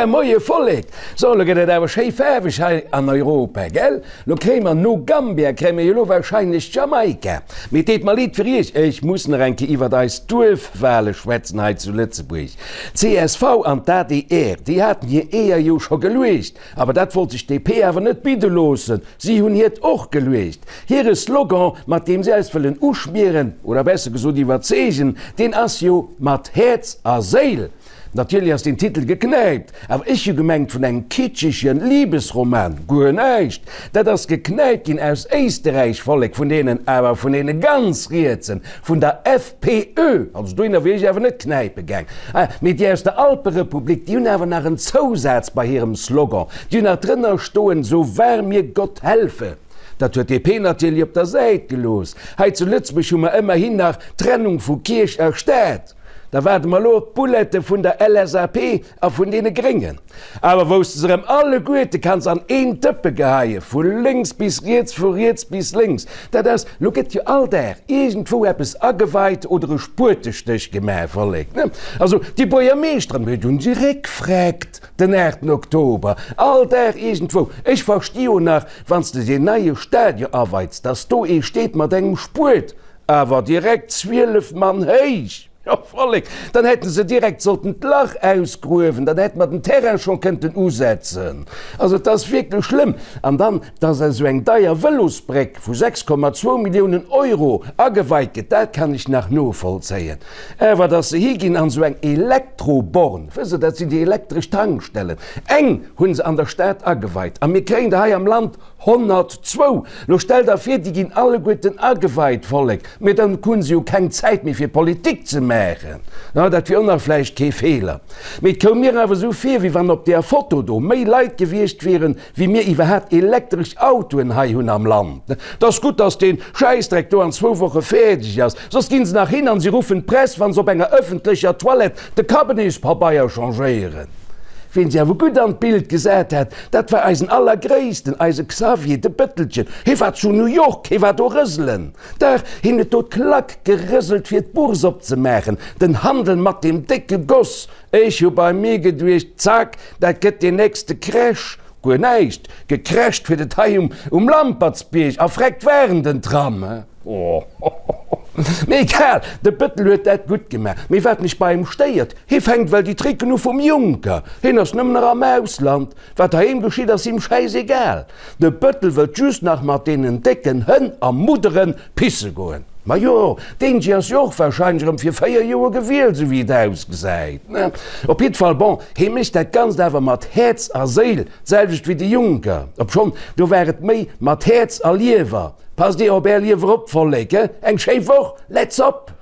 Moie Vollek! So, lo gëtt et awer schéi faarweg hei an Europa, gell? Lo kréie mer no Gambia kréie mer jo lo warscheinlech Jamaika. Mee et deet mer leed fir iech, ech muss nach eng Kéier iwwert eis Duerfwale schwätzen hei zu Lëtzebuerg. D'CSV an d'ADR, déi haten hir Eeër jo scho geluecht, awer dat wollt sech d'DP awer net bidde loossen. Si hunn hiert och geluecht. Hire Slogan, mat deem si eis wëllen uschmieren, oder besser gesot iwwerzeegen, deen ass jo Mat Häerz a Séil. Natierlech ass den Titel geknäipt, awer ech hu gemengt vun engem kitschegen Liebesroman. Guer näischt! Dat ass geknäipt ginn aus Éisterräich, Vollek, vun deenen, awer vun deene ganz Rietsen, vun der FPÖ. Also dohinner wier ech awer net knäipe gaang. Ah, mee déi aus der Alperepublik, déi hunn awer nach en Zousaz bei hirem Slogan, déi hunn nach drënner stoen, So wahr mir Gott helfe. Dat huet DP natierlech op der Säit gelooss. Hei zu Lëtzebuerg hu mer ëmmerhin nach d'Trennung vu Kierch a Staat. Da waarde mer elo op d'Bullet'e vun der LSAP a vun deene Gréngen. Awer wou s de se erëm alleguerte kanns an een Dëppe geheien, vu lénks bis riets, vu riets bis lénks, dat ass, lo gëtt jo all Dag iergendwou eppes ageweit oder e Spuetestéch gemaach, Vollek, ne? Also déi Buergermeeschteren, déi hunn si réckfreckt den 8 Oktober, all Dag iergendwou. Ech versti jo nach, wann s de deen neie Stadion aweits, dass do ee steet mat engem Spuet, Awer direkt 12 Mann héich! Jo, Vollek, dann hätte se direkt sollten d'Lach ausgruewen, dann hätte mer den Terrain scho kënnten usetzen. Also et ass wierklech schlëmm. An dann, dass esou eng deier Vëlosbréck vu 6,2 Milliounen Euro ageweit gëtt, dat kann ech nach novollzéien. Awer dass se higinn an esou eng Elektroborn, wësst Der, dat sinn déi elektresch Tankstellen, eng hu se an der Stad ageweit a mir kréien der hei am Land 102! Lo stell der vir, déi ginn alleguerten ageweit, Vollek, mee dann hunn se jo keng Zäit méi fir Politik ze maachen. Na, dat wier och nach vläicht kee Feeler. Mee et koum mir awer esou vir, wéi wann op deer Foto do méi Leit gewiescht wieren, wéi mir iwwerhaapt elektresch Autoen hei hunn am Land. Et ass gutt, dass dee Schäissdreck do an zwou Woche fäerdeg ass, soss ginn se nach hin an se ruffen d'Press, wa se op enger ëffentlecher Toilette de Kabinetspabeier changéieren. Ween se awer gutt an d'Bild gesat hat, dat war eisen Allergréissten, eise Xavier, de Bëttelchen. Hie war zu New York, hie war do rëselen. Dach, hien huet do d'Klack gerëselt fir d'Bourse opzemaachen, den Handel mat deem décke Goss. Ech hu bei mir geduecht, Zack, dat gëtt deen nächste Crash. Guer näischt, gecrasht huet et hei um Lampertsbierg a vreckt waren den Tram. Mee egal, de Bëttel huet dat gutt gemaach. Mee wat mech bei him stéiert, hie fänkt well déi Tricken u vum Juncker. Hien ass nëmmen nach am Ausland. Wat heiheem geschitt ass him schäisegal. De Bëttel wëllt just nach mat deenen décken Hënn a Mudderen pisse goen. Majo, deen Jee ass jo och warscheinlech erëm fir 4 Joer gewielt, esou wéi et ausgesäit. Op jiddwer Fall, bon, hie mécht dat Ganzt awer mat Häerz a Séil, d'selwecht wéi de Juncker. Obschonn, do war et méi mat Häerz a Liewer. Passt dir op är Liewer op, Vollek, eng schéi Woch, let's op!